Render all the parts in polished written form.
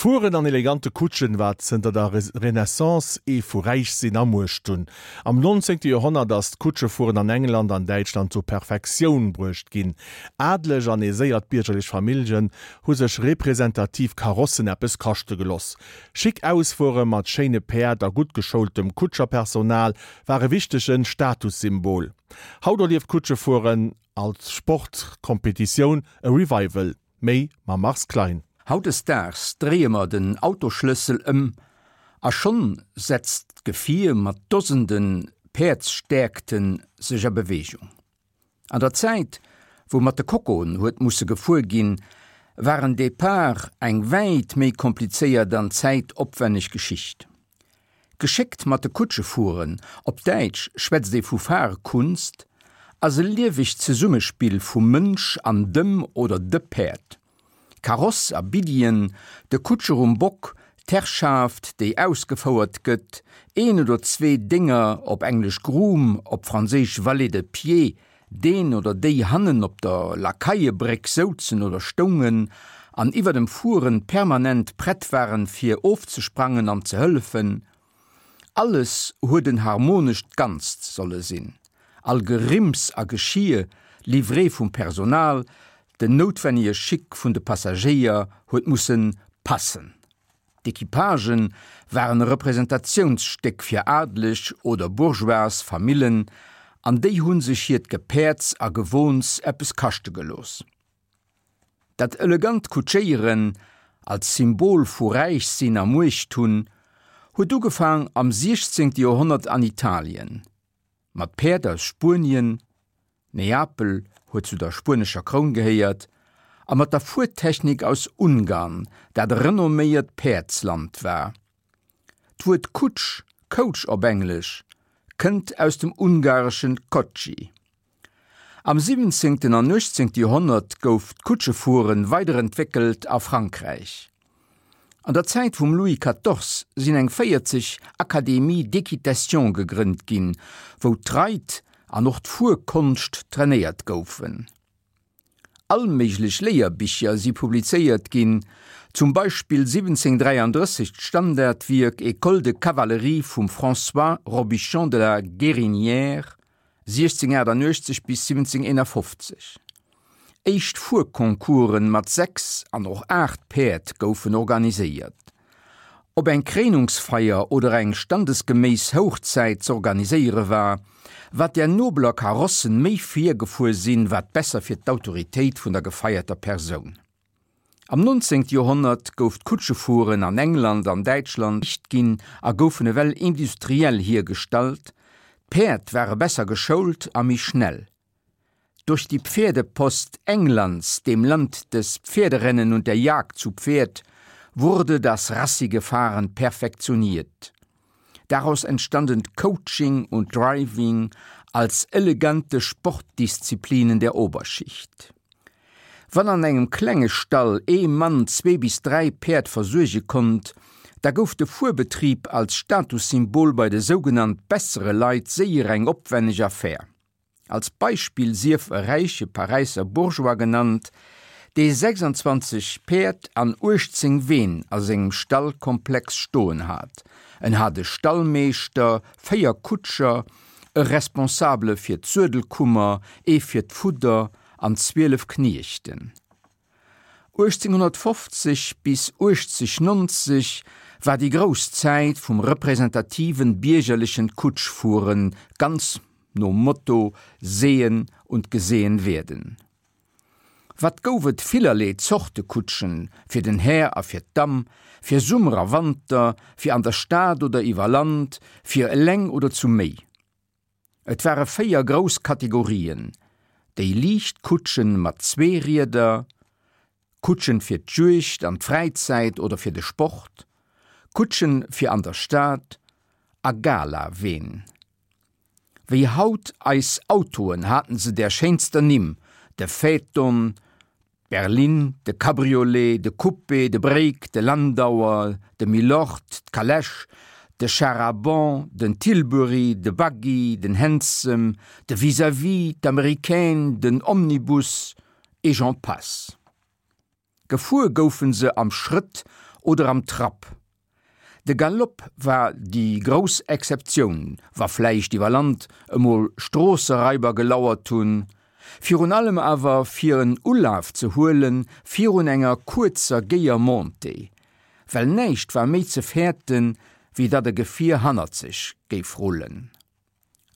Fueren an elegante Kutschen war zënter der Renaissance ee vu Räichsinn a Muecht hunn. Am 19. Joerhonnert ass d'Kutschefueren an England an Däitschland zur Perfektioun bruecht ginn. Adleg an aiséiert biergerlech Familljen hu sech representativ Karossen eppes kaschte geloss. Schick Ausfuere mat schéine Päerd a gutt geschoultem Kutscherpersonal war e wichtege Statussymbol. Haut erlieft d'Kutschefueren als Sportkompetitioun e Revival. Méi mam Mars Klein. Hautdesdaags dréie mer den Autosschlëssel ëm a schonn setzt d'Gefier mat Dosende Päerdsstäerkte sech a Beweegung. An der Zäit, wou mat de Kokoen huet musse gefuer ginn, war en Depart eng wäit méi komplizéiert an zäitopwänneg Geschicht. Geschéckt mat de Kutsche fueren, op Däitsch schwätzt ee vu Fahrkunst, ass e liewegt Zesummespill vum Mënsch an dem oder de Päerd. Kaross a Biddien, de Kutscher um Bock, d'Herrschaft, déi ausgefouert gëtt, een oder zwee Dénger, op Englesch groom, op Franséisch valet de pied, deen oder déi hannen op der Lakaiebréck souzen oder stoungen an iwwer dem Fueren permanent prett waren fir ofzesprangen an ze hëllefen. Alles huet en harmonescht Ganzt solle sinn, all Gerimms a Geschier livré vum Personal, den noutwennege Chic vun de Passagéier huet mussen passen. D'Equipagen waren e Representationsstéck fir adeleg oder bourgeoise Famillen an déi hu sech hiert Gepäerds a Gewohns eppes kaschte gelooss. Dat elegant Kutschéieren als Symbol vu Räichsinn a Muecht hunn, huet ugefaang am 16. Joerhonnert an Italien, mat Päerd aus Spuenien, Neapel huet zu der spuenescher Kroun gehéiert, a mat der Fuertechnik aus Ungarn, dat e renomméiert Päerdsland war. D'Wuert Kutsch, coach op Englesch, kënnt aus dem ungareschen kocsi. Am 17. an 18. Joerhonnert gouf d'Kutschefuere weiderentwéckelt a Frankräich. An der Zäit vum Louis Quatorze sinn eng 40 Académies d'équitation gegrënnt ginn, wou d'Reit an och d'Fuerkonscht trainéiert goufen. All méiglech Léierbicher si publizéiert ginn, zum Beispill 1733 d'Standardwierk École de cavalerie vum François Robichon de la Guérinière, 1688 bis 1751. Éischt Fuerconcoursen mat 6 an och 8 Päerd goufen organiséiert. Ob eng Kréinungsfeier oder eng standesgeméiss Houchzäit z'organiséiere war, wat där nobeler Karossen méi virgefuer sinn, wat besser fir d'Autoritéit vun der gefeierter Persoun. Am 19. Joerhonnert gouf d'Kutschefueren an England an Däitschland liicht ginn a goufen ewell industriell hiergestallt, d'Päerd ware besser geschoult a méi schnell. Durch die Pferdepost Englands, dem Land des Pferderennen und der Jagd zu Pferd, wurde das rassige Fahren perfektioniert. Daraus entstanden Coaching und Driving als elegante Sportdisziplinen der Oberschicht. Wann an engem klenge Stall ee Mann zwee bis dräi Päerd versuerge konnt, da gouf de Fuerbetrib als Statussymbol bei de sougenannt bessere Leit séier eng opwenneg Affär. Als Beispill sief e räiche Paräisser Bourgeois genannt, dee 26 Päerd an 18 Ween a sengem Stallkomplex stoen hat. En hat e Stallmeeschter, véier Kutscher, e Responsabele fir d'Suedelkummer, ee fir d'Fudder an 12 Kniechten. 1850 bis 1890 war déi grouss Zäit vum representativen biergerlechen Kutschfueren, ganz nom Motto Sehen und gesehen werden. Wat gouf et villerlee Zorte Kutschen, fir den Här a fir d'Damm, fir Summer a Wanter, fir an der Stad oder iwwer Land, fir eleng oder zu méi. Et ware 4 grouss Kategorien, déi liicht Kutschen mat zwee Rieder, Kutschen fir d'Juegd an d'Fräizäit oder fir de Sport, Kutschen fir an der Stad a Gala-Ween. Wéi haut eis Autoen haten se där schéinster Nimm, de Phaeton, d'Berline, de Cabriolet, de Coupé, de Break, de Landauer, de Milord, d'Calèche, de Char à bancs, den Tilbury, de Buggy, den Hansom, de Vis-à-vis, d'Américaine, den Omnibus et j'en passe. Gefuer goufe se am Schrëtt. oder am Trapp. De Galopp war déi grouss Exceptioun, wa vläicht iwwer Land emol Stroosseraiber gelauert hunn, virun allem awer fir en Ulaf ze huele virun enger kuerzer géier Montée, well näischt war méi ze fäerten, wéi datt e Gefier hannert sech géif rullen.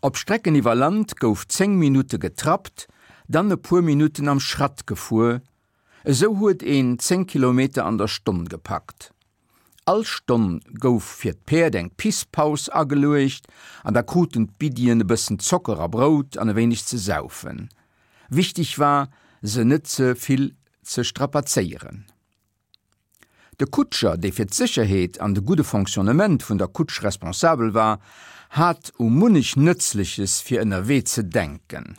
Op Strecken iwwer Land gouf 10 Minutte getrappt, dann e puer Minutten am Schratt gefuer, esou huet een 10 Kilometer an der Stonn gepackt. All Stonn gouf fir d'Päerd eng Pisspaus ageluecht an da kruten d'Biddien e bëssen Zocker a Brout an e wéineg ze saufen. Wichteg war, se net ze vill ze strapazéieren. De Kutscher, dee fir d'Sécherheet an de gudde Fonctionnement vun der Kutsch responsabel war, hat u munnech Nëtzleches fir ënnerwee ze denken.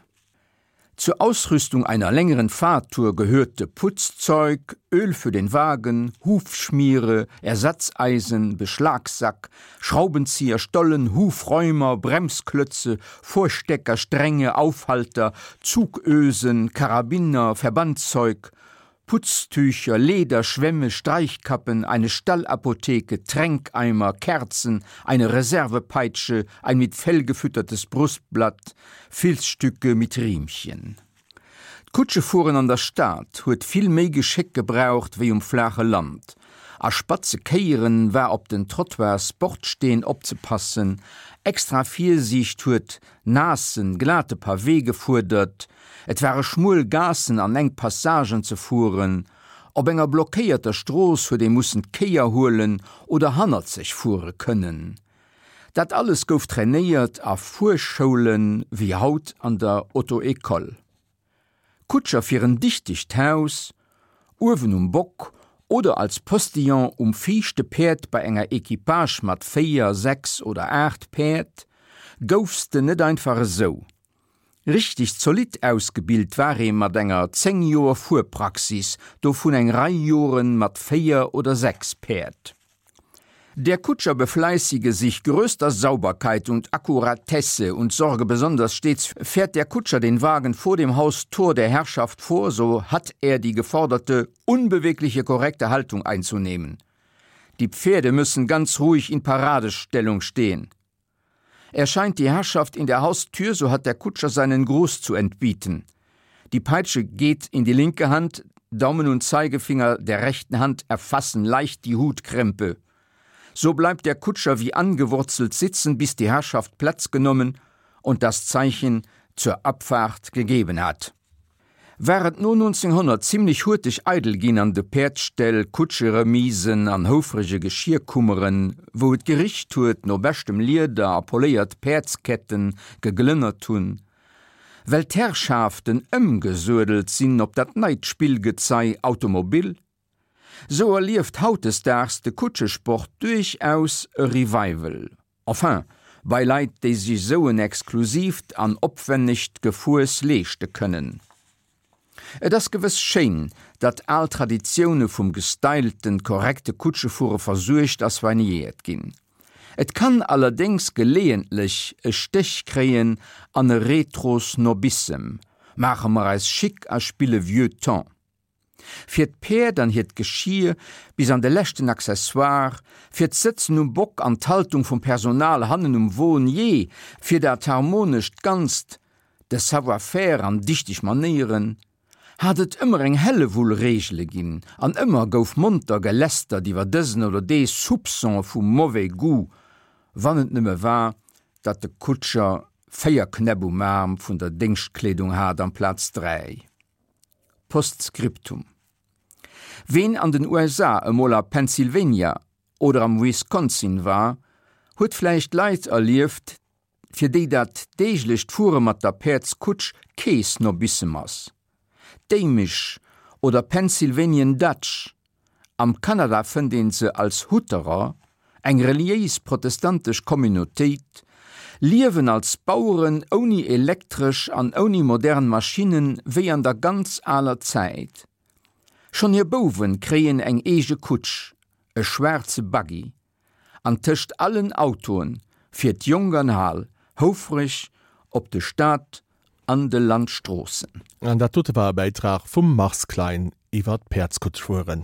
Zur Ausrüstung einer längeren Fahrtour gehörte Putzzeug, Öl für den Wagen, Hufschmiere, Ersatzeisen, Beschlagsack, Schraubenzieher, Stollen, Hufräumer, Bremsklötze, Vorstecker, Stränge, Aufhalter, Zugösen, Karabiner, Verbandszeug, Putztücher, Leder, Schwämme, Streichkappen, eine Stallapotheke, Tränkeimer, Kerzen, eine Reservepeitsche, ein mit Fell gefüttertes Brustblatt, Filzstücke mit Riemchen. D'Kutschefueren an der Stad huet vill méi Geschéck gebraucht wéi um flaache Land. A spatze Kéieren war op den Trottoirs Bordsteen opzepassen, extra Virsiicht huet naassen, glate Pavé gefuerdert, et ware schmuel Gaassen an enk Passagen ze fueren, op enger blockéierter Strooss huet ee mussen d'Kéier huelen oder hannerzeg fuere kënnen. Dat alles gouf trainéiert a Fuerschoulen, wéi haut an der Auto-École. Kutscher fir en dichtegt Haus, uewen um Bock oder als Postillon um viischte Päerd bei enger Equipage mat 4, 6 oder 8 Päerd, goufs de net einfach esou. Richteg zolidd ausgebilt war ee mat enger 10 Joer Fuerpraxis, dovun eng Rei Joren mat 4 oder 6 Päerd. Der Kutscher befleißige sich größter Sauberkeit und Akkuratesse und sorge besonders stets fährt der Kutscher den Wagen vor dem Haustor der Herrschaft vor, so hat er die geforderte unbewegliche korrekte Haltung einzunehmen. Die Pferde müssen ganz ruhig in Paradestellung stehen. Erscheint die Herrschaft in der Haustür, so hat der Kutscher seinen Gruß zu entbieten. Die Peitsche geht in die linke Hand, Daumen und Zeigefinger der rechten Hand erfassen leicht die Hutkrempe. So bleibt der Kutscher wie angewurzelt sitzen, bis die Herrschaft Platz genommen und das Zeichen zur Abfahrt gegeben hat. War et no 1900 zimlech hurteg eidel ginn an de Päerdsställ, Kutscheremisen an houfrege Geschierkummeren, wou et gericht huet no beschtem Lieder a poléiert Päerdsketten geglënnert hunn, well d'Herrschaften ëmgesuedelt sinn op dat neit Spillgezei Automobil, sou erlieft hautdesdaags de Kutschesport duerchaus e Revival. Enfin, bei Leit, déi sech esou en exklusiivt an opwennegt Gefuers leeschte kënnen. Et ass gewëss schéin, datt al Traditioune vum gestylten, korrekte Kutschefuere versuergt a soignéiert ginn. Et kann allerdéngs geleeëntlech e Stéch kréien an e Retro-Snobissem, maache mer eis chic a spille vieux temps. Fir d'Päerd an hiert Geschir bis an de leschten Accessoire, fir d'Sëtzen um Bock an d'Haltung vum Personal hannen um Won, jee, fir dat harmonescht Ganzt, de Savoir-faire an dichteg Manéieren, hat et ëmmer eng Hellewull Reegele ginn an ëmmer gouf monter gelästert iwwer dësen oder dee Soupçon vu mauvais goût, wann et nëmme war, datt de Kutscher 4 Knäpp um Aarm vun der Déngschtkleedung hat amplaz 3. Postscriptum. Ween an den USA emol a Pennsylvania oder am Wisconsin war, huet vläicht Leit erlieft, fir déi dat deeglecht Fuere mat der Päerdskutsch kee Snobissem ass. D'Amish oder Pennsylvanian Dutch Am Kanada fënnt een se als Hutterer, eng reliéis protestantesch Communautéit, liewen als Baueren ouni Elektresch an ouni modern Maschinnen wéi an der ganz aler Zäit. Schonn hir Bouwen kréien eng eege Kutsch, e schwaarze Buggy. An tëscht allen Autoen fiert Jonk an Al houfreg op de Stad an de Landstroossen. An dat dote war e Bäitrag vum Mars Klein iwwer d'Päerdskutschfueren.